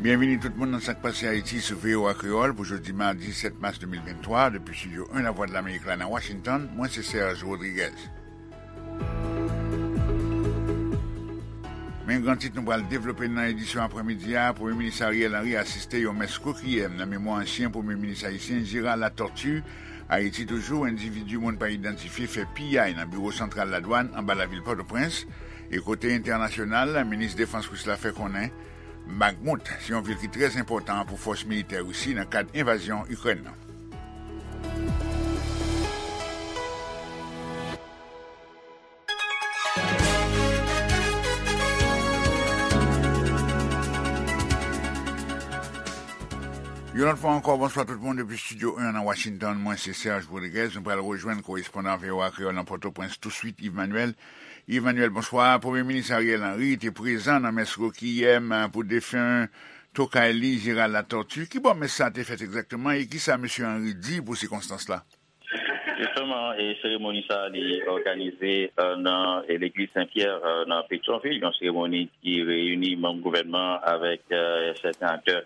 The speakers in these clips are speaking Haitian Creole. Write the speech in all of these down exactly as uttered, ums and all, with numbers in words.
Byenvini tout moun nan Sa k Pase Ayiti sou V O A Kreyòl pou jodi madi sèt mas de mil venntwa, depi Estidyo en Lavwadlamerik la nan Washington, mwen se Serge Rodriguez. Men gran tit nou pral devlope nan edisyon aprèmidi a, Premye Minis Ariel Henry asiste yon mès rekwiyèm nan memwa ansyen Premye Minis ayisyen Gérard Latortue. Ayiti toujou, endividi moun pa idantifye fè piyay nan biwo santral ladwàn anba lavil Pòtoprens. E kote entènasyonal, minis defans ris la fè konnen Bakhmut se yon vil ki trè enpòtan pou fòs militè Risi nan kad envazyon Ikrèn nan. Yon lòt fwa ankò, bonswa tout moun depi Estidyo en nan Washington. Mwen se Serge Rodriguez. Nou pral rejwenn korespondan V O A Kreyòl nan Pòtoprens touswit, Yves Manuel. Yves Manuel, bonswa. Premye Minis Ariel Henry te prezan nan mès rekwiyèm pou defen tokay li, Gérard Latortue. Ki bò mès sa a te fèt egzakteman e ki sa mesye Henry di pou sikonstans la? Jisteman, e seremoni sa a, li òganize, e, nan, e, legliz Sen Pyè, e, nan Petyonvil, yon seremoni ki reyini manm gouvènman avèk, e, sèten aktè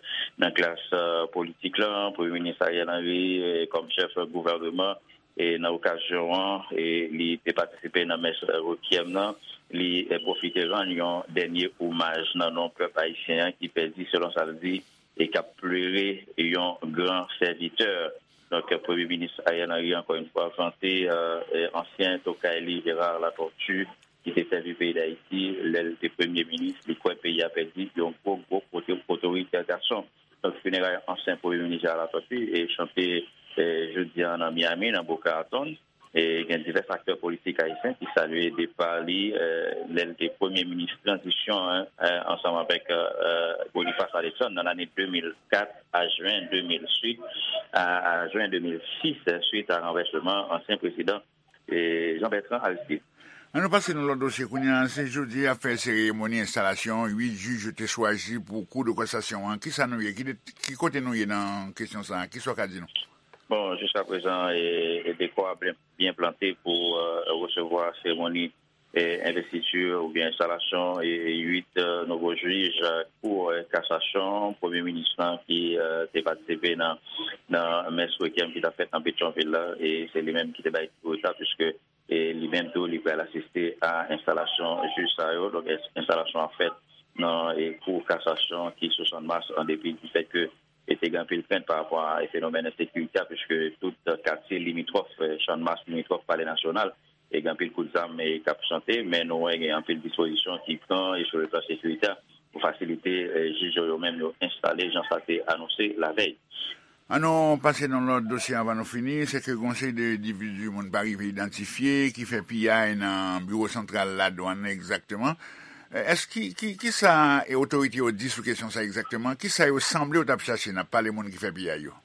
nan klas, e, politik la, Premye Minis Ariel Henry, e, kòm chèf gouvèneman, e, nan okazyon an, e, li te patisipe nan mès rekwiyèm nan, li, e, pwofite rann yon dènye omaj nan non pèp ayisyen an ki pèdi, selon sa l di, e k ap plere yon gran sèvitè. Donk, Premye Minis Ariel Henry, ankò yon fwa, vante, e, e, ansyen tokay li, Gérard Latortue, ki te sèvi peyi Dayiti lè l te premye minis. Li kwè peyi a pèdi yon gwo, gwo oto-, otoritè gason. Donk, fineray ansyen Premye Minis Gérard Latortue e chante, e, jodi a nan Miami, nan Boca Raton. E gen divès aktè politik ayisyen ki salye depa li, e, lè l te premye minis tranzisyon an, e, ansanm avèk, e, e, Boniface Alexandre nan lane de mil kat a jen de mil uit, a, a jen de mil sis, e, swit a ranvèsman ansyen prezidan, e, Jean Bertrand Aristide. Ann nou pase nan lòt dosye kounye a. Se jodi y ap fè seremoni enstalasyon uit jij yo te chwazi pou Kou de Kasasyon an. Kisa nou ye? Ki de-, ki kote nou ye nan kesyon sa a? Kisa w ka di nou? Bon, jiskaprezan, e, e dekò a byen, byen plante pou, e, resevwa seremoni, e, envestiti oubyen enstalasyon, e, uit, e, nouvo jij, e, Kou, e, Kasasyon, Premye Minis lan ki, e, te patisipe nan, nan mès rekyèm ki t ap fèt nan Petyonvil la, e se li menm ki te bay kou sa, piske, e, li menm tou, li pral asiste a enstalasyon jij sa yo. Donk, ens-, enstalasyon ap fèt nan, e, Kou Kasasyon ki sou Channmas, an depi di fèt ke e te gen anpil krent pa rapò a, e, fenomèn ensekirite a, piske tout katye limitwòf, e, Channmas, limitwòf Palè Nasyonal, e gen anpil kout zam, e, k ap chante, men nou wè gen anpil dispozisyon ki pran, e, sou le plan sekirite a, pou fasilite, e, jij yo, yo menm yo enstale, jan sa te anonse lavèy. Ann nou pase nan lòt dosye anvan nou fini, se ke gon seri de endividi moun pa rive idantifye ki fè piyay nan biwo santral ladwàn nan egzakteman. E, èske ki, ki, kisa, e, otorite yo di sou kesyon sa egzakteman? Kisa yo sanble yo t ap chache? N ap pale moun ki fè piyay yo.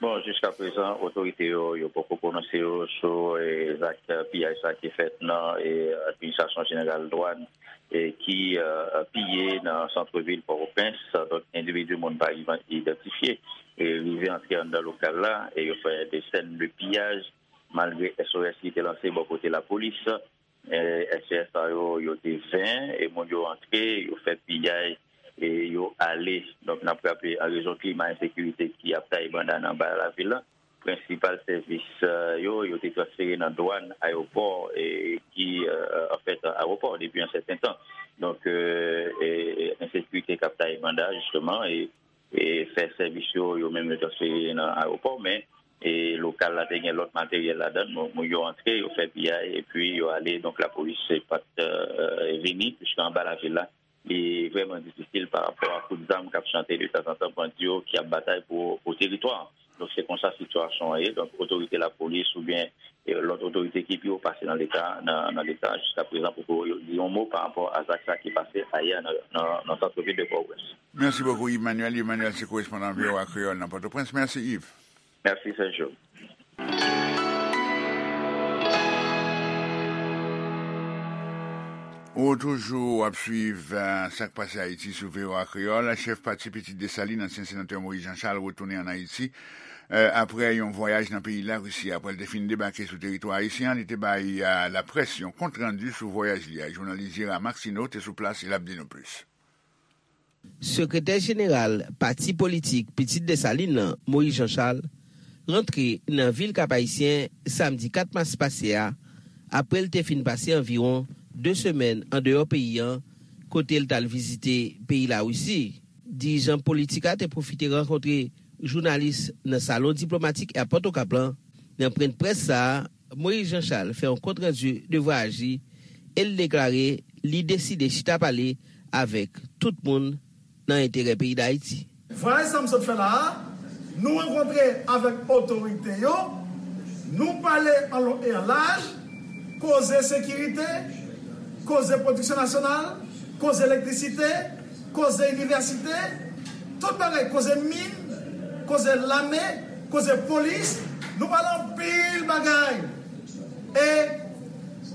Bon, jiskaprezan, otorite yo, yo poko pwononse yo sou, e, zak, e, piyay sa ki fèt nan, e, Administrasyon Jeneral Dwàn, e, ki, e, piye nan sant vil Pòtoprens. Donk, endividi moun pa rive idantifye, e, rive antre anndan lokal la, e yo fè de sèn de piyaj, malgre S O S ki te lanse bò kote lapolis. E, S O S sa yo, yo te ven, e moun yo antre, yo fè piyay, e yo ale. Donk, n ap raple, an rezon klima ensekirite ki ap taye banda nan ba lavil la, prensipal sèvis, e, yo, yo te transfere nan dwàn, ayewopò, e ki, e, anfèt, ayewopò depi yon sèten tan. Donk, e, e, e, ensekirite k ap taye banda, jisteman, e, e fè sèvis yo, yo menm yo transfere nan ayewopò, men, e, lokal la te gen lòt materyèl ladan l, moun, moun yo antre, yo fè piyay, epi yo ale, donk lapolis pa t, e, vini, piske anba lavil la, li vrèman difisil pa rapò a kout zam k ap chante detanzantan, bandi yo ki ap batay pou, pou teritwa. Donk, se konsa sitiyasyon an ye. Donk, otorite lapolis oubyen, e, lòt otorite ki pi wo pase nan Leta, nan, nan Leta, jiskaprezan, poko di yon mo pa rapò a zak sa ki pase ayè nan, nan, nan sant vil de Pòtoprens. Mèsi bokou, Yves Manuel. Yves Manuel se korespondan V O A Kreyòl nan Pòtoprens. Mèsi, Yves. Mèsi, Sergio. Ou toujou ap swiv, e, Sa k Pase Ayiti sou V O A Kreyòl. Chèf pati Pitit Desalin, ansyen senatè Moïse Jean Charles, retounen ann Ayiti, e, aprè yon vwayaj nan peyi Larisi. Aprè l te fin debake sou teritwa ayisyen an, li te bay, e, laprès yon kontrandi sou vwayaj li a. Jounalis Gérard Maxineau te sou plas e l ap di nou plis. Sekretè jeneral pati politik Pitit Desalin nan, Moïse Jean Charles, rantre nan vil Kap Ayisyen samdi kat mas pase a, apre l te fin pase anviwon de semèn andeyò peyi an, kote l t al vizite peyi Larisi. Dirijan politik la te pwofite rankontre jounalis nan salon diplomatik Airport Okap lan. Nan pwennprès sa a, Moïse Jean Charles fè yon kontrandi de vwayaji e l deklare li deside chita pale avèk tout moun nan enterè peyi Dayiti. Vwayaj sa m sot fè la a, nou rankontre avèk otorite yo, nou pale an lon e an laj, koze sekirite, koze pwodiksyon nasyonal, koze elektrisite, koze inivèsite, tout bagay, koze min, koze lame, koze polis, nou pale anpil bagay. E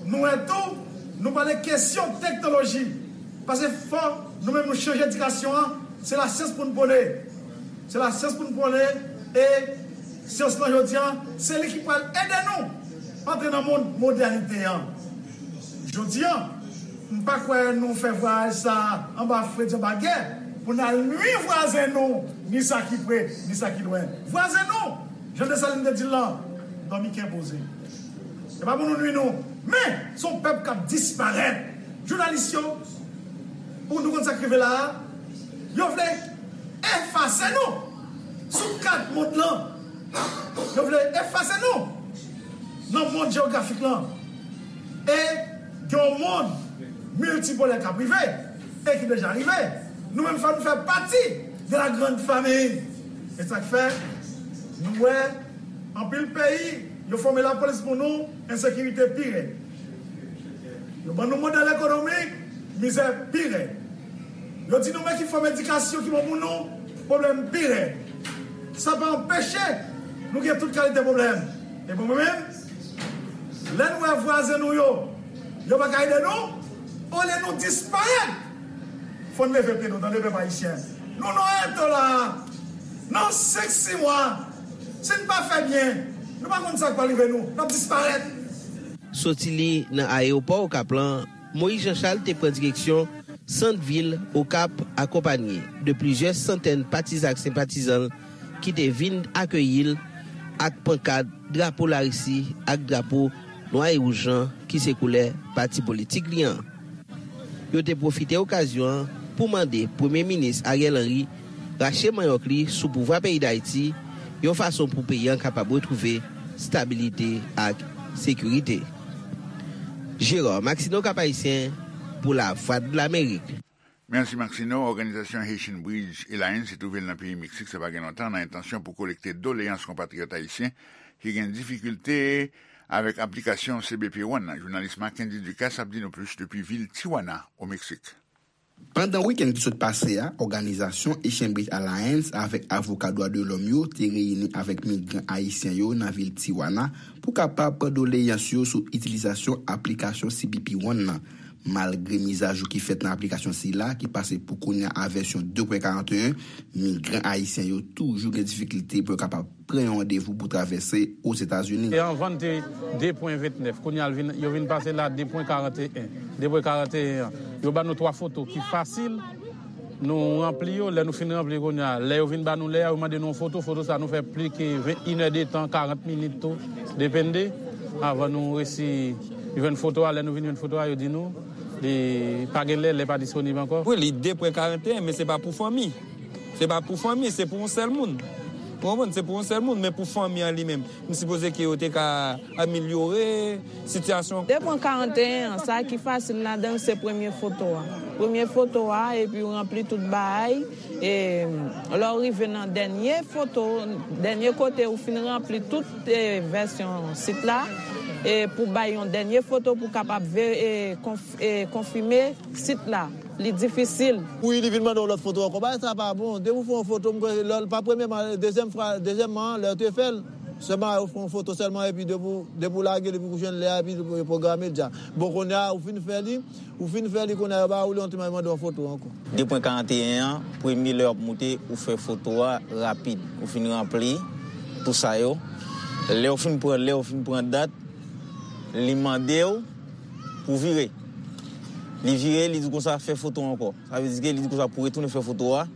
nou wè tou, nou pale kesyon teknoloji. Paske fò nou menm nou chanje edikasyon an, se lasyans pou n pwone. Se lasyans pou n pwone e syans lan jodi an, se li ki pral ede nou antre nan mond modènite an. Jodi an, m pa kwè nou fè vwayaj sa a anba fredi, anba gè, pou n al nwi vwazen nou, ni sa ki pre, ni sa ki lwen. Vwazen nou, jan Desalin te di l lan, dòmi kè poze. E pa pou nou nwi nou. Men, se yon pèp k ap disparèt. Jounalis yo, pou nou konn sa k rive la a, yo vle efase nou sou kat mond lan. Yo vle efase nou nan mond jewografik lan. E gen yon mond miltipolè k ap rive e ki deja rive. Nou menm, fò nou fè pati de la grande famille. E sa k fè, nou wè anpil peyi, yo fòme lapolis pou nou, ensekirite pi rèd. Yo ban nou modèl ekonomik, mizè pi rèd. Yo di nou men ki fòm edikasyon ki bon pou nou, pwoblèm pi rèd. Sa pa anpeche nou gen tout kalite pwoblèm. E pou mwen menm, lè n wè vwazen nou yo, yo pa ka ede nou, olye nou disparèt, fò n leve pye nou, tande pèp ayisyen. Nou nan eto la a. Nan senk, sis mwa, si n pa fè byen, nou pa konn sa k pral rive nou. N ap disparèt. Soti li nan ayewopò Okap lan, Moïse Jean Charles te pran direksyon sant vil Okap, akonpanye de plizyè santèn patizan ak senpatizan l ki te vin akeyi l ak pankat, drapo Larisi ak drapo nwa e wouj lan ki se koulè pati politik li an. Yo te pwofite okazyon an pou mande Premye Minis Ariel Henry rache manyòk li sou pouvwa peyi Dayiti, yon fason pou peyi an kapab retwouve stabilite ak sekirite. Gérard Maxineau, Cap-Haïtien, pou Lavwadlamerik. Mèsi Maxineau. Òganizasyon Haitian Bridge Alliance twouve l nan peyi Meksik sa pa gen lontan nan entansyon pou kolekte doleyans konpatriyòt ayisyen ki gen difikilte avèk aplikasyon C B P One nan. Jounalis Mackendy Ducasse ap di nou plis depi vil Tijuana, o Meksik. Pandan wikenn ki sot pase a, òganizasyon Haitian Bridge Alliance avèk avoka dwa de lòm yo te reyini avèk migran ayisyen yo nan vil Tijuana pou kapab pran doleyans yo sou itilizasyon aplikasyon C B P One nan. Malgre mizajou ki fèt nan aplikasyon sila, ki pase pou kounye a a vèsyon de pwen karanteyen, migran ayisyen yo toujou gen difikilte pou yo kapab pran yon randevou pou travèse Ozetazini. E anvan n te de pwen ventnèf, kounye a l vin, yo vin pase l a de pwen karanteyen. De pwen karanteyen an, yo ba nou twa foto ki fasil. Nou ranpli yo, lè nou fin ranpli kounye a, lè yo vin ba nou lè a, yo mande nou yon foto, foto sa nou fè plis ke inèdetan, karant minit tou, depende, avan nou resi jwenn foto a. Lè nou vin jwenn foto a, yo di nou li pa gen lè, lè pa disponib ankò. Wi, li de pwen karanteyen, men se pa pou fanmi. Se pa pou fanmi, se pou yon sèl moun. Ou konprann? Se pou yon sèl moun, men pou fanmi an li menm, m sipoze ke yo te ka amelyore sitiyasyon. De pwen karanteyen an, sa ki fasil ladan l se premye foto a. Premye foto a, epi w ranpli tout bagay. E lè w rive nan dènye foto, dènye kote ou fin ranpli tout e, vèsyon sit la, e pou bay yon dènye foto pou kapab ve, e, konf, e, konfime sit la. Li difisil. Wi, li vin mande yon lòt foto ankò. Bagay sa pa bon. Depi w fè yon foto, m kwè lè l pa premyèman, dezyèm fwa, dezyèmman, lè w te fè l, sèlman ou fè yon foto sèlman, epi depi w, depi w lage l, epi w jwenn lè a, epi l pwograme l deja. Bon, kounye a, ou fin fè li, ou fin fè li, kounye a, yo ba ou li, yon ti mande yon foto ankò. De pwen karanteyen an, premye lè w ap moute, ou fè foto a rapid. Ou fin ranpli tout sa yo. Lè w fin pran, lè w fin pran dat, li mande w pou w vire. Li vire, li di konsa, "Fè foto ankò." Sa vle di ke li di konsa pou retounen fè foto a.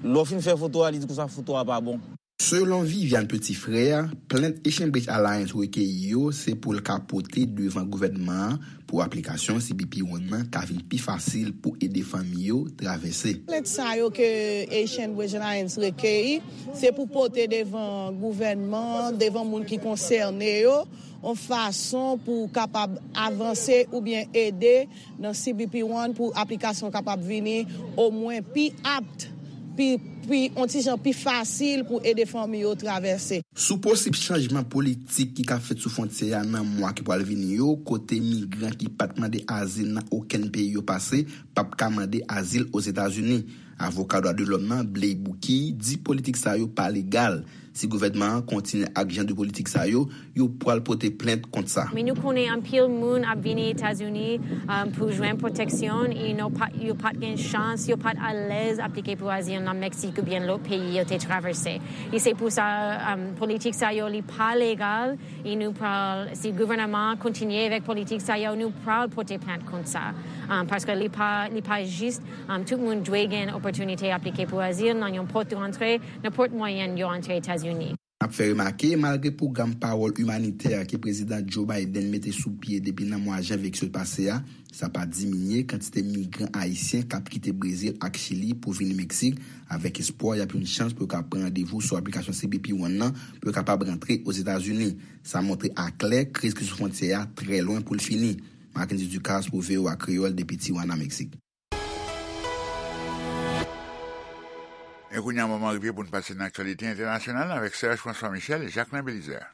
Lè w fin fè foto a, li di konsa, "Foto a pa bon." Selon Viviane Petit-Frère, plent Haitian Bridge Alliance rekeyi yo se pou l ka pote devan gouvènman an pou aplikasyon C B P One nan ka vin pi fasil pou ede fanmi yo travèse. Plent sa yo ke Haitian Bridge Alliance rekeyi, se pou pote devan gouvènman, devan moun ki konsène yo, yon fason pou kapab avanse oubyen ede nan C B P One pou aplikasyon kapab vini omwen pi apt, pi, pi, yon ti jan pi fasil pou ede fanmi yo travèse. Sou posib chanjman politik ki ka fèt sou fwontyè a nan mwa ki pral vini yo, kote migran ki pa t mande azil nan okenn peyi yo pase p ap ka mande azil Ozetazini. Avoka dwa de lòm nan, Blay Bouki, di politik sa yo pa legal. Si gouvènman an kontinye ak jan de politik sa yo, yo pral pote plent kont sa. Men nou konnen anpil moun ap vini Etazini, um, pou jwenn pwoteksyon, e nou pa, yo pa t gen chans, yo pa t alèz aplike pou azil nan Meksik oubyen lòt peyi yo te travèse. E se pou sa, um, politik sa yo li pa legal, e nou pral, si gouvènman an kontinye avèk politik sa yo, nou pral pote plent kont sa. Um, paske li pa, li pa jis, um, tout moun dwe gen opòtinite aplike pou azil nan yon pòt de rantre, nenpòt mwayen yo antre Etazini. N ap fè remake, malgre pwogram pawòl imanitè ke Prezidan Joe Biden mete sou pye depi nan mwa janvye ki sot pase a, sa pa diminye kantite migran ayisyen k ap kite Brezil ak Chili pou vini Meksik, avèk espwa y ap yon chans pou yo ka pran randevou sou aplikasyon C B P One nan pou yo kapab rantre Ozetazini. Sa montre aklè kriz ki sou fwontyè a trè lwen pou l fini. Marckendy Ducasse pou V O A Kreyòl depi Tijuana, Meksik. E kounye a, moman rive pou n pase nan aktyalite entènasyonal avèk Serge François Michel e Jacquelin Belizaire.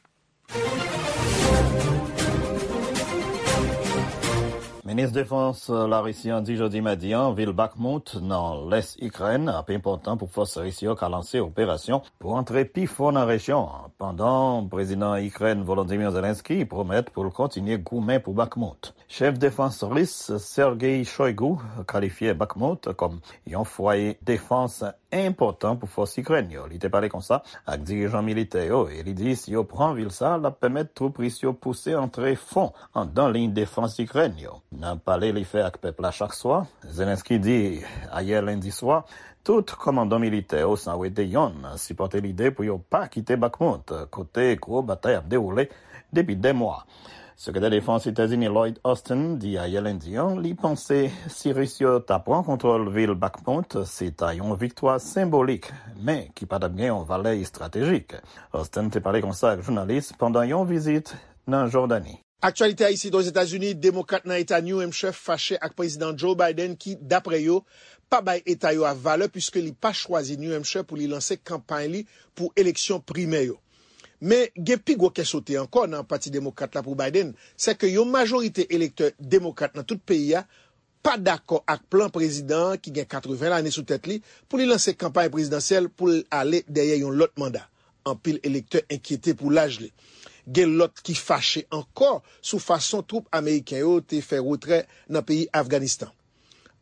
Minis Defans Larisi an di jodi madi an, vil Bakhmut, nan lès Ikrèn, ap enpòtan pou fòs ris yo ka lanse operasyon pou antre pi fon nan rejyon an, pandan Prezidan Ikrèn Volodymyr Zelensky pwomèt pou l kontinye goumen pou Bakhmut. Chèf defans ris Sergei Shoigu kalifye Bakhmut kòm yon fwaye defans enpòtan pou fòs Ikrèn yo. Li te pale konsa ak dirijan militè yo e li di si yo pran vil sa, l ap pèmèt twoup ris yo pouse antre fon anndan liy defans Ikrèn yo. Nan pale li fè ak pèp la chak swa, Zelensky di ayè lendi swa, tout kòmandan militè yo san wete yonn sipòte lide pou yo pa kite Bakhmut, kote gwo batay ap dewoule depi dè mwa. Sekretè Defans Etazini Lloyd Austin di ayè lendi an, li panse si Ris yo ta pran kontwòl vil Bakhmut, se ta yon viktwa senbolik, men ki pa t ap gen yon valè estratejik. Austin te pale konsa ak jounalis pandan yon vizit nan Jòdani. Aktyalite isit Ozetazini, Demokrat nan Eta New Hampshire fache ak Prezidan Joe Biden ki, dapre yo, pa bay eta yo a valè piske li pa chwazi New Hampshire pou li lanse kanpay li pou eleksyon primè yo. Men gen pi gwo kè sote ankò nan Pati Demokrat la pou Biden, sèke yon majorite elektè demokrat nan tout peyi a pa dakò ak plan prezidan an ki gen katreven lane sou tèt li pou li lanse kanpay prezidansyèl pou l ale dèyè yon lòt manda. Anpil elektè enkyete pou laj li. Gen lòt ki fache ankò sou fason twoup ameriken yo te fè retrè nan peyi Afganistan.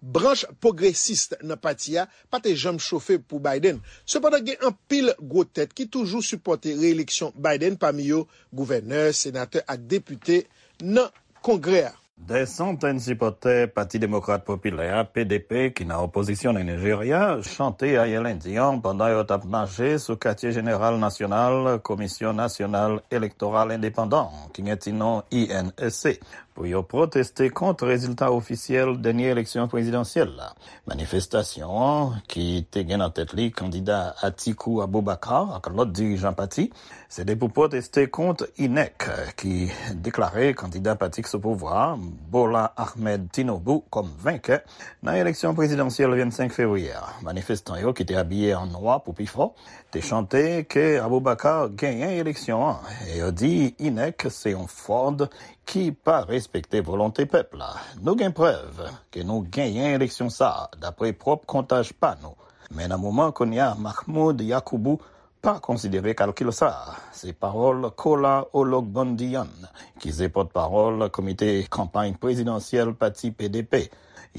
Branch pwogresis nan pati a pa te janm chofe pou Biden. Sepandan, gen anpil gwo tèt ki toujou sipòte reyeleksyon Biden, pami yo gouvènè, senatè ak depite nan Kongrè a. Dè santèn sipòtè Pati Demokrat Popilè a, P D P, ki nan opozisyon nan Nijerya, chante ayè lendi an pandan yo t ap mache sou katye jeneral nasyonal Komisyon Nasyonal Elektoral Endepandan, ki gen ti non I N E C, pou yo pwoteste kont rezilta ofisyèl dènye eleksyon prezidansyèl la. Manifestasyon an, ki te gen nan tèt li kandida Atiku Abubakar ak lòt dirijan pati, se te pou pwoteste kont INEC, ki deklare kandida pati k sou pouvwa a, Bola Ahmed Tinubu, kòm venkè nan eleksyon prezidansyèl vennsenk fevriye a. Manifestan yo, ki te abiye an nwa pou pifò, te chante ke Abubakar genyen eleksyon an, e yo di INEC se yon fwòd ki pa respekte volonte pèp la. Nou gen prèv ke nou genyen eleksyon sa a, dapre pwòp kontaj pa nou. Men nan moman kounye a, Mahmoud Yakubu pa konsidere kalkil sa a. Se pawòl Kola Ologbondiyan, ki se pòtpawòl komite kanpay prezidansyèl pati P D P.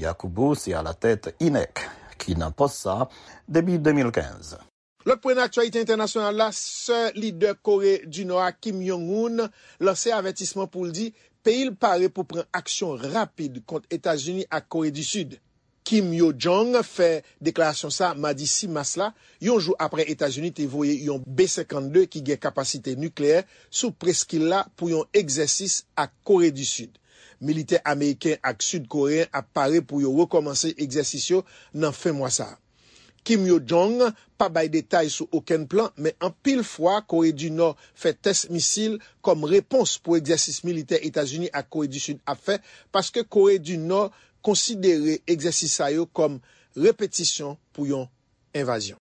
Yakubu se alatèt INEC, ki nan pòs sa a depi de mil kenz. Lòt pwen nan aktyalite entènasyonal la, sè lidè Kore di Nò a, Kim Jong-un, lanse avètisman pou l di peyi l pare pou pran aksyon rapid kont Etazini ak Kore di Sid. Kim Yo Jong fè deklarasyon sa a madi sis mas la, yon jou apre Etazini te voye yon B senkannde ki gen kapasite nikleyè sou preskil la pou yon egzèsis ak Kore di Sid. Militè ameriken ak sid koreyen ap pare pou yo rekòmanse egzèsis yo nan fen mwa sa a. Kim Yo Jong pa bay detay sou okenn plan, men anpil fwa Kore di Nò fè tès misil kòm repons pou egzèsis militè Etazini ak Kore di Sid ap fè, paske Kore di Nò konsidere egzèsis sa yo kòm repetisyon pou yon envazyon.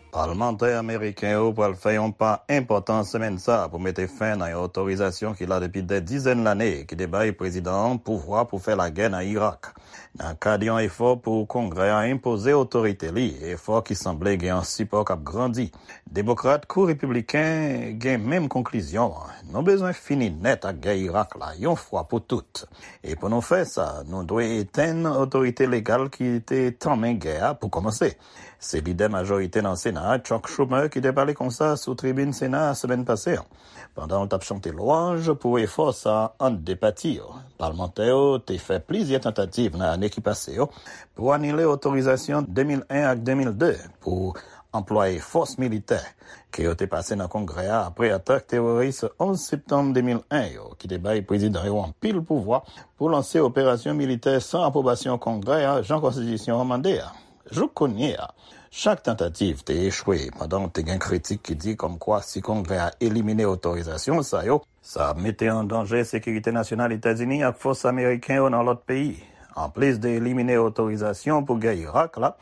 Palmantè ameriken yo pral fè yon pa enpòtan semèn sa a pou mete fen nan yon otorizasyon ki la depi dè dizèn lane ki te bay prezidan an pouvwa pou fè lagè nan Irak. Nan kad yon efò pou Kongrè a enpoze otorite li, efò ki sanble gen yon sipò k ap grandi, Demokrat kou Repibliken gen menm konklizyon an: nou bezwen fini nèt ak gè Irak la yon fwa pou tout. E pou nou fè sa, nou dwe etenn otorite legal ki te tanmen gè a pou kòmanse. Se lidè majorite nan Sena a, Chuck Schumer, ki te pale konsa sou tribin Sena a semèn pase an, pandan l t ap chante lwanj pou efò sa a ant de pati yo. Palmantè yo te fè plizyè tantativ nan ane ki pase yo pou anile otorizasyon de mil en ak de mil de pou anplwaye fòs militè ke yo te pase nan Kongrè a apre atak teworis onz septanm de mil en yo, ki te bay prezidan yo anpil pouvwa pou lanse operasyon militè san apwobasyon Kongrè a, jan konstitisyon an mande a. Jouk kounye a, chak tantativ te echwe, pandan te gen kritik ki di kòmkwa si Kongrè a elimine otorizasyon sa yo, sa ap mete an danje sekirite nasyonal Etazini ak fòs ameriken yo nan lòt peyi. Anplis de elimine otorizasyon pou gè Irak la,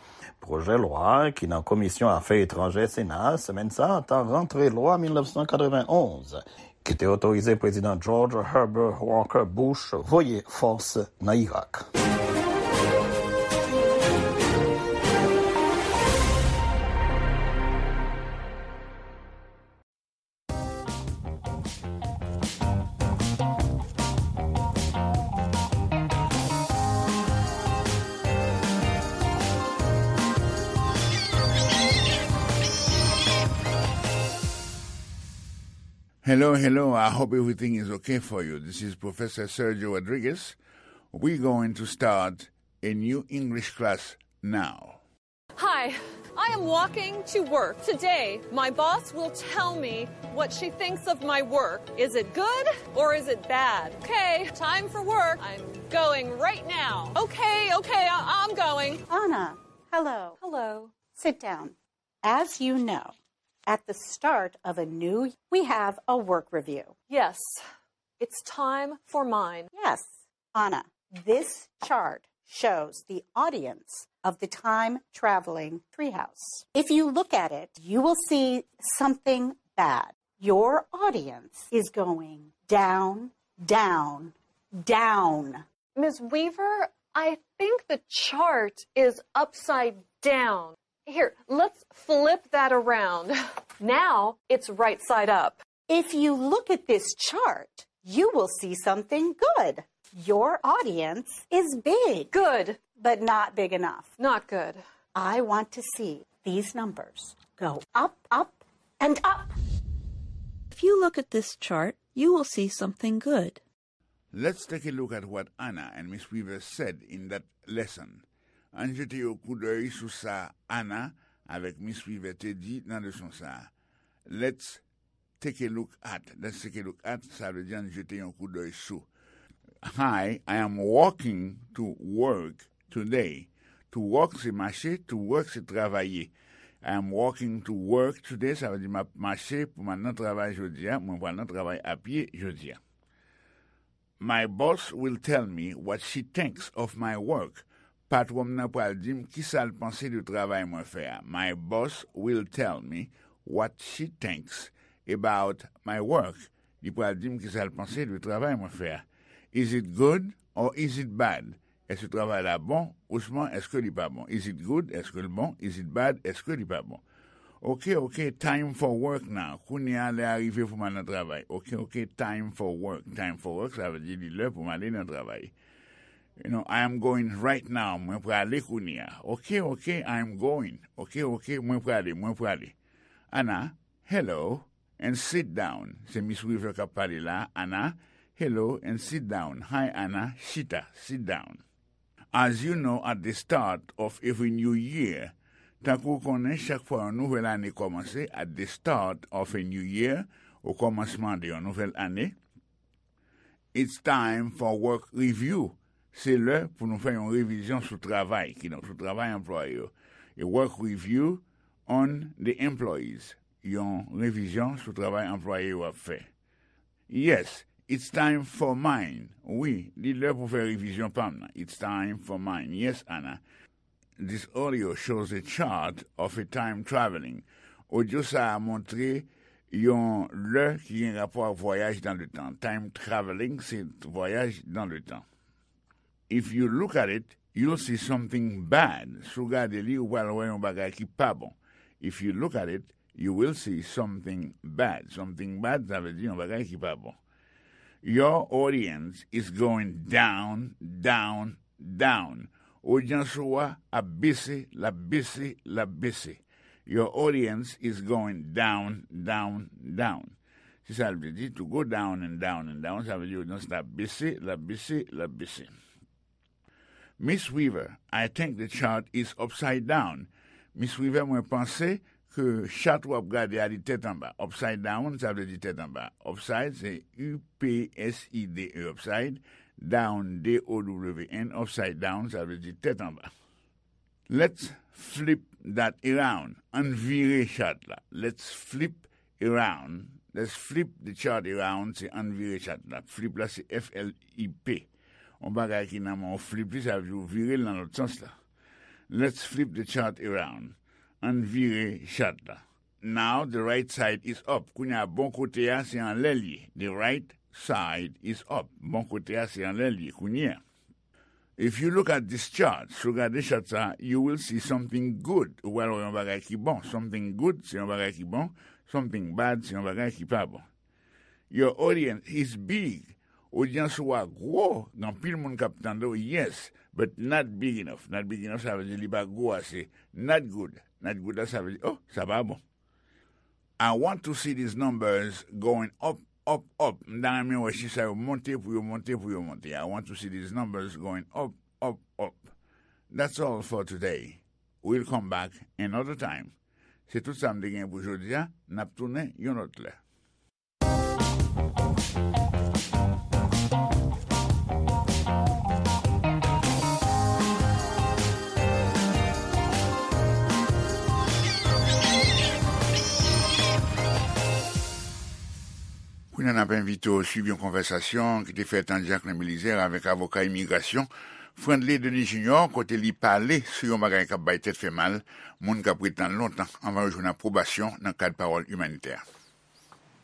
pwojè lwa a, ki nan Komisyon Afè Etranjè Sena a semèn sa a, ta rantre lwa mil nèf san katrevenn onz, ki te otorize Prezidan George Herbert Walker Bush voye fòs nan Irak. Hello, hello. I hope everything is okay for you. This is Professor Sergio Rodriguez. We're going to start a new English class now. Hi, I am walking to work. Today, my boss will tell me what she thinks of my work. Is it good or is it bad? Okay, time for work. I'm going right now. Okay, okay, I- I'm going. Anna, hello. Hello. Sit down. As you know, at the start of a new, we have a work review. Yes, it's time for mine. Yes, Anna, this chart shows the audience of the time traveling treehouse. If you look at it, you will see something bad. Your audience is going down, down, down. Miss Weaver, I think the chart is upside down. Here, let's flip that around. Now it's right side up. If you look at this chart, you will see something good. Your audience is big. Good. But not big enough. Not good. I want to see these numbers go up, up, and up. If you look at this chart, you will see something good. Let's take a look at what Anna and Miss Weaver said in that lesson. Ann jete yon koudèy sou sa Anna avèk Miss Weaver te di nan leson sa a. Let's take a look at. Let's take a look at, sa vle di ann jete yon koudèy sou. Hi, I am walking to work today. To walk se mache, to work se travay. I am walking to work today, sa vle di m ap mache pou m al nan travay jodi a, mwen pral nan travay a pye jodi a. My boss will tell me what she thinks of my work. Patwon m nan pral di m kisa l panse de travay mwen fè a. My boss will tell me what she thinks about my work. Li pral di m kisa l panse de travay mwen fè a. Is it good or is it bad? Èske travay la bon? Ousman èske li pa bon? Is it good? Èske l bon? Is it bad? Èske li pa bon? Ok, ok, time for work now. Kounye a lè a rive pou m al nan travay. Ok, ok, time for work. Time for work, sa vle di li lè pou m ale nan travay. You know, I am going right now. Mwen prale kounye a. Ok, ok, I am going. Ok, ok, mwen prale, mwen prale. Anna, hello. And sit down. Se Miss Weaver k ap pale la, Anna. Hello, and sit down. Hi, Anna. Chita, sit down. As you know, at the start of every new year, tankou w konnen, chak fwa yon nouvèl ane kòmanse, at the start of a new year, o kòmansman de yon nouvèl ane, it's time for work review. Se lè pou nou fè yon revizyon sou travay, kidonk sou travay anplwaye yo. A work review on the employees. Yon revizyon sou travay anplwaye yo ap fè. Yes, it's time for mine. Wi, li lè pou fè revizyon pa m nan. It's time for mine. Yes, Anna. This audio shows a chart of a time traveling. Odyo sa a montre yon lè ki gen rapò ak vwayaj nan letan. Time traveling, se vwayaj nan letan. If you look at it, you'll see something bad. Si w gade li, ou pral wè yon bagay ki pa bon. If you look at it, you will see something bad. Something bad, sa vle di yon bagay ki pa bon. Your audience is going down, down, down. Odyans ou a ap bese, l ap bese, l ap bese. Your audience is going down, down, down. Se sa l vle di, to go down and down and down, sa vle di odyans la ap bese, l ap bese, l ap bese. Miss Weaver, I think the chart is upside down. Miss Weaver, mwen panse ke chat w ap gade a li tèt anba. Upside down, sa vle di tèt anba. Upside, se U P S I D E, upside. Down, D O W N, upside down, sa vle di tèt anba. Let's flip that around. Ann vire chat la. Let's flip around. Let's flip the chart around, se ann vire chat la. Flip la, se F L I P. Yon bagay ki nan men w, flip li, sa vle di w vire l nan lòt sans la. Let's flip the chart around. Ann vire chat la. Now the right side is up. Kounye a, bon kote a, se anlè l ye. The right side is up. Bon kote a, se anlè l ye kounye a. If you look at this chart, si w gade chat sa, you will see something good. Ou pral wè yon bagay ki bon. Something good, se yon bagay ki bon. Something bad, se yon bagay ki pa bon. Your audience is big. Odyans ou a gwo, gen anpil moun k ap tande w, yes, but not big enough. Not big enough, sa vle di li pa gwo ase. Not good. Not good la, sa vle di, oh, sa pa bon. I want to see these numbers going up, up, up. M ta renmen wè chif sa yo monte pou yo monte, pou yo monte. I want to see these numbers going up, up, up. That's all for today. We'll come back another time. Se tout sa m te gen pou jodi a. N ap tounen yon lòt lè. Kounye a, n ap envite w swiv yon konvèsasyon ki te fèt ant Jacquelin Belizaire avèk avoka imigrasyon Friendly Denis Junior, kote li pale sou yon bagay k ap bay tèt fè mal, moun k ap ret lan lontan anvan yo jwenn apwobasyon nan kad pawòl imanitè.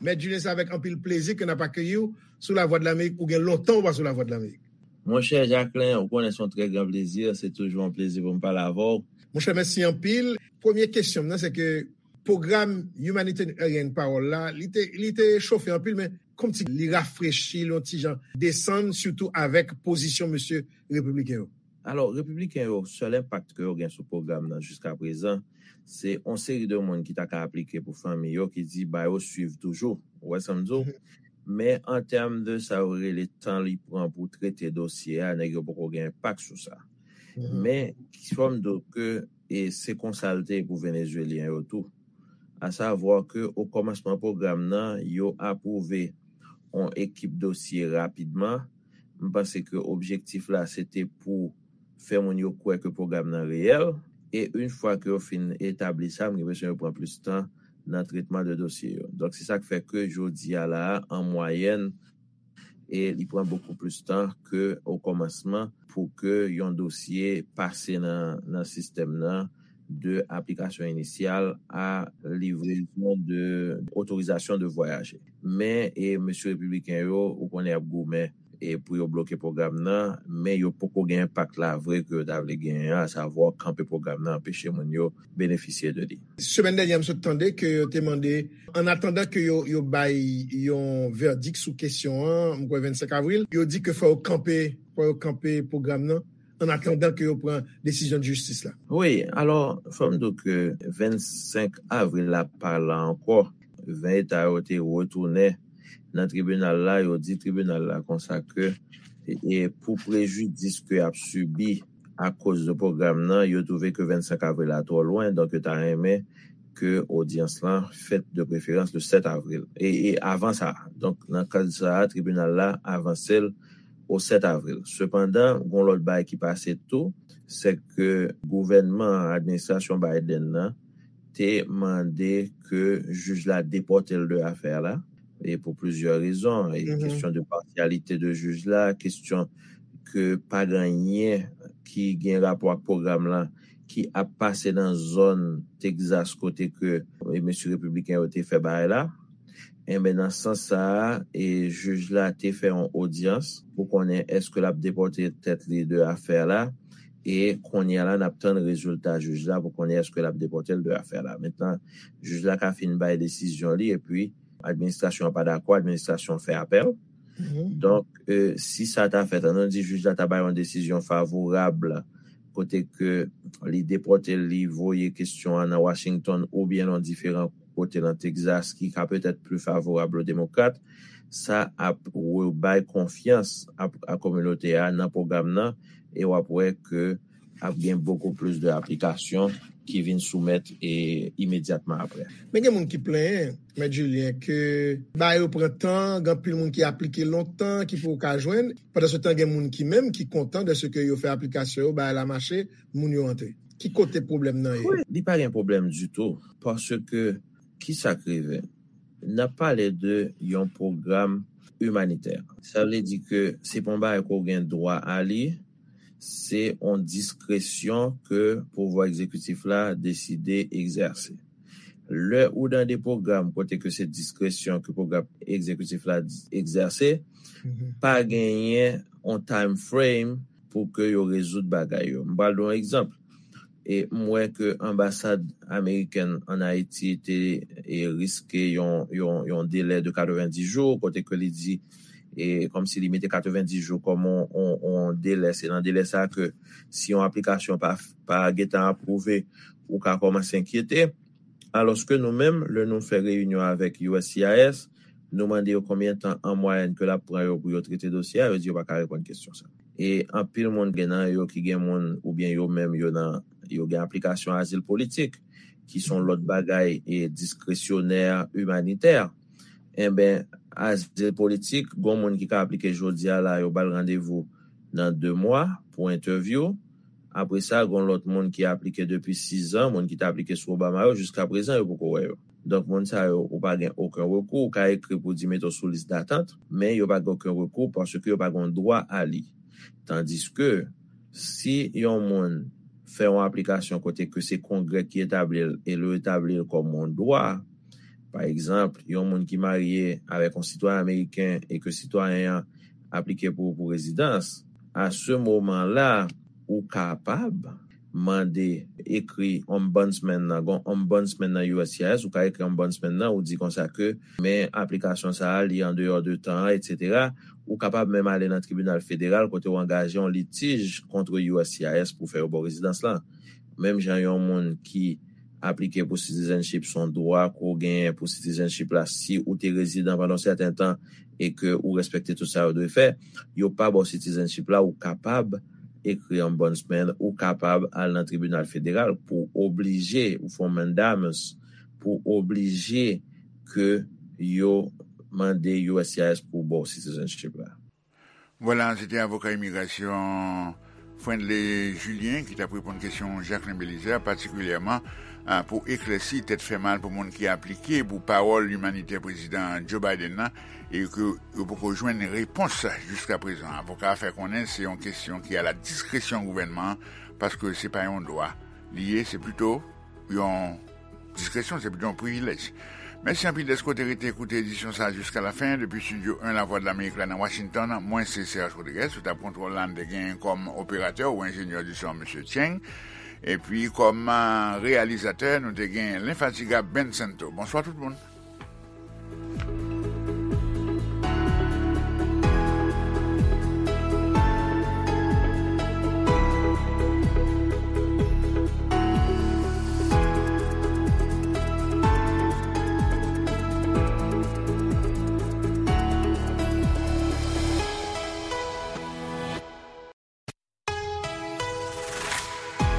Mèt Julien, se avèk anpil plezi ke n ap akeyi w sou Lavwadlamerik. Ou gen lontan ou pa sou Lavwadlamerik. Monchè Jacquelin, ou konnen se yon trè gran plezi, se toujou yon plezi pou m pale avè w. Monchè, mèsi anpil. Premye kesyon m nan, se ke pwogram Humanitarian Parole la, li te, li te chofe anpil, men kòmsi li rafrechi l yon ti jan, desann, sitou avèk pozisyon mesye repibliken yo. Alò, repibliken yo, sèl enpak ke yo gen sou pwogram nan jiskaprezan, se yon seri de moun ki ta ka aplike pou fanmi yo ki di ba yo swiv toujou. Ou wè sa m di w? Mhm. Men an tèm de sa yo rele tan li pran pou trete dosye a, nèg yo poko gen enpak sou sa. Mhm. Men, fò m di w ke, e se konsa l te ye pou Venezuelyen yo tou. Asavwa ke o kòmansman pwogram nan, yo apwouve yon ekip dosye rapidman. M panse ke objektif la, se te pou fè moun yo kwè ke pwogram nan reyèl. E yon fwa ke yo fin etabli sa, m gen enpresyon yo pran plis tan nan tretman de dosye yo. Donk, se sa k fè ke jodi a la a, an mwayèn, e li pran bokou plis tan ke o kòmansman pou ke yon dosye pase nan, nan sistèm nan, de aplikasyon inisyal a livrezon de otorizasyon de vwayaje. Men, e mesye repibliken yo, ou konnen y ap goumen, e pou yo bloke pwogram nan, men yo poko gen enpak la vre ke yo ta vle genyen an, asavwa kanpe pwogram nan, anpeche moun yo benefisye de li. Semèn dènyè, m sot tande ke yo te mande, an atandan ke yo, yo bay yon vèdik sou kesyon an, m kwè vennsenk avril, yo di ke fò yo kanpe, fò yo kanpe pwogram nan, an atandan ke yo pran desizyon jistis la. Wi, alò, fò m di w ke vennsenk avril la pa la ankò. ven eta yo te retounen nan tribinal la, yo di tribinal la konsa ke e pou prejidis ke y ap sibi akoz de pwogram nan, yo twouve ke vennsenk avril la twò lwen, donk yo ta renmen ke odyans lan fèt de preferans le sèt avril. E, e avan sa, donk nan kad sa a, tribinal la avanse l o sèt avril. Sepandan, gon lòt bagay ki pase tou, se ke gouvènman, administrasyon Biden nan, te mande ke jij la depòte l de afè la, e pou plizyè rezon, e kesyon de pasyalite de jij la, kesyon ke pa gen anyen ki gen rapò ak pwogram lan ki ap pase nan zòn Texas kote ke e mesye repibliken yo te fè bagay la. Enben, nan sans sa a, e jij la te fè yon odyans pou konnen èske l ap depòte tèt li de afè la. E kounye a la, n ap tann rezilta jij la pou konnen èske l ap depòte l de afè la. Mentnan, jij la ka fin bay desizyon li, epi administrasyon an pa dakò, administrasyon an fè apèl. Donk, e, si sa ta fèt, ann nou di jij la ta bay yon desizyon favorab kote ke li depòte l, li voye kesyon an nan Washington oubyen nan diferan kote nan Texas ki ka petèt pli favorab o demokrat, sa ap rebay konfyans ap, a kominote a nan pwogram nan, e w ap wè ke ap gen bokou plis de aplikasyon ki vin soumèt e imedyatman apre. Men gen moun ki plenyen, Mèt Julien, ke bagay yo pran tan, gen anpil moun ki aplike lontan, ki poko ka jwenn. Pandan se tan, gen moun ki menm ki kontan de se ke yo fè aplikasyon yo, bagay la mache, moun yo antre. Ki kote pwoblèm nan ye? Wi, li pa gen pwoblèm ditou, paske ki sa k rive? N ap pale de yon pwogram imanitè. Sa vle di ke se pa yon bagay ke w gen dwa a li, se yon diskresyon ke pouvwa egzekitif la deside egzèse. Lè ou nan de pwogram kote ke se diskresyon ke pwogram egzekitif la egzèse, pa genyen yon time frame pou ke yo rezoud bagay yo. M pral ba w yon egzanp. E m wè ke anbasad amerikèn ann Ayiti te e, riske yon, yon, yon delè de katrevenndis jou, kote ke li di, e kòmsi li mete katrevenndis jou kòm yon, yon, yon delè. Se nan delè sa a ke si yon aplikasyon pa, pa gentan apwouve, ou ka kòmanse enkyete. Alòske nou menm, lè nou fè reyinyon avèk U S C I S, nou mande yo konbyen tan an mwayèn ke l ap pran yo pou yo trete dosye a, yo di yo pa ka reponn kesyon sa. E anpil moun gen nan yo ki gen moun oubyen yo menm yo nan, yo gen aplikasyon azil politik, ki se yon lòt bagay e diskresyonè, imanitè. Enben, azil politik, gon moun ki ka aplike jodi a la, yo ba l randevou nan de mwa pou entèvyou. Apre sa, gon lòt moun ki aplike depi sizan, moun ki te aplike sou Obama yo, jiska prezan, yo poko wè yo. Donk, moun sa yo, ou pa gen okenn rekou, ou ka ekri pou di mete w sou lis datant, men yo pa gen okenn rekou paske yo pa gen dwa a li. Tandiske, si yon moun fè yon aplikasyon kote ke se Kongrè ki etabli l e yo etabli l kòm yon dwa, pa egzanp, yon moun ki marye avèk yon sitwayen ameriken e ke sitwayen an aplike pou, pou rezidans, a se moman la, ou kapab mande, ekri ombudsman nan, gon ombudsman nan U S C I S, ou ka ekri ombudsman nan, ou di konsa ke, men aplikasyon sa a, li andeyò de tan an, etsetera. Ou kapab menm ale nan tribinal federal kote w angaje yon litij kont U S C I S pou fè yo ba w rezidans lan. Menm jan yon moun ki aplike pou citizenship, se yon dwa ke w genyen pou citizenship la si ou te rezidan pandan yon sèten tan e ke ou respekte tout sa yo dwe fè, yo pa ba w citizenship la, ou kapab ekri ombudsman, ou kapab al nan tribinal federal pou oblije, ou fè yon mandamus pou oblije ke yo mande U S C I S pou ba w citizenship la. Vwala, se te avoka imigrasyon Friendly Julien ki t ap reponn kesyon Jacquelin Belizaire, patikilyèman, a, pou eklèsi tèt fè mal pou moun ki aplike pou pawòl imanitè prezidan Joe Biden nan, e ke yo poko jwenn repons jiska prezan. Avoka a fè konnen se yon kesyon ki a la diskresyon gouvènman an, paske se pa yon dwa li ye, se plito yon diskresyon, se plito yon privilèj. Mèsi anpil dèske w te rete koute edisyon sa a jiska lafen. Depi Estidyo en Lavwadlamerik la nan Washington, mwen se Serge Rodriguez, sou tab kontwòl la, n te gen kòm operatè ou enjenyè di son, mesye Cheng. Epi kòm, a, reyalizatè, nou te gen lenfatigab Ben Santo. Bonswa tout moun.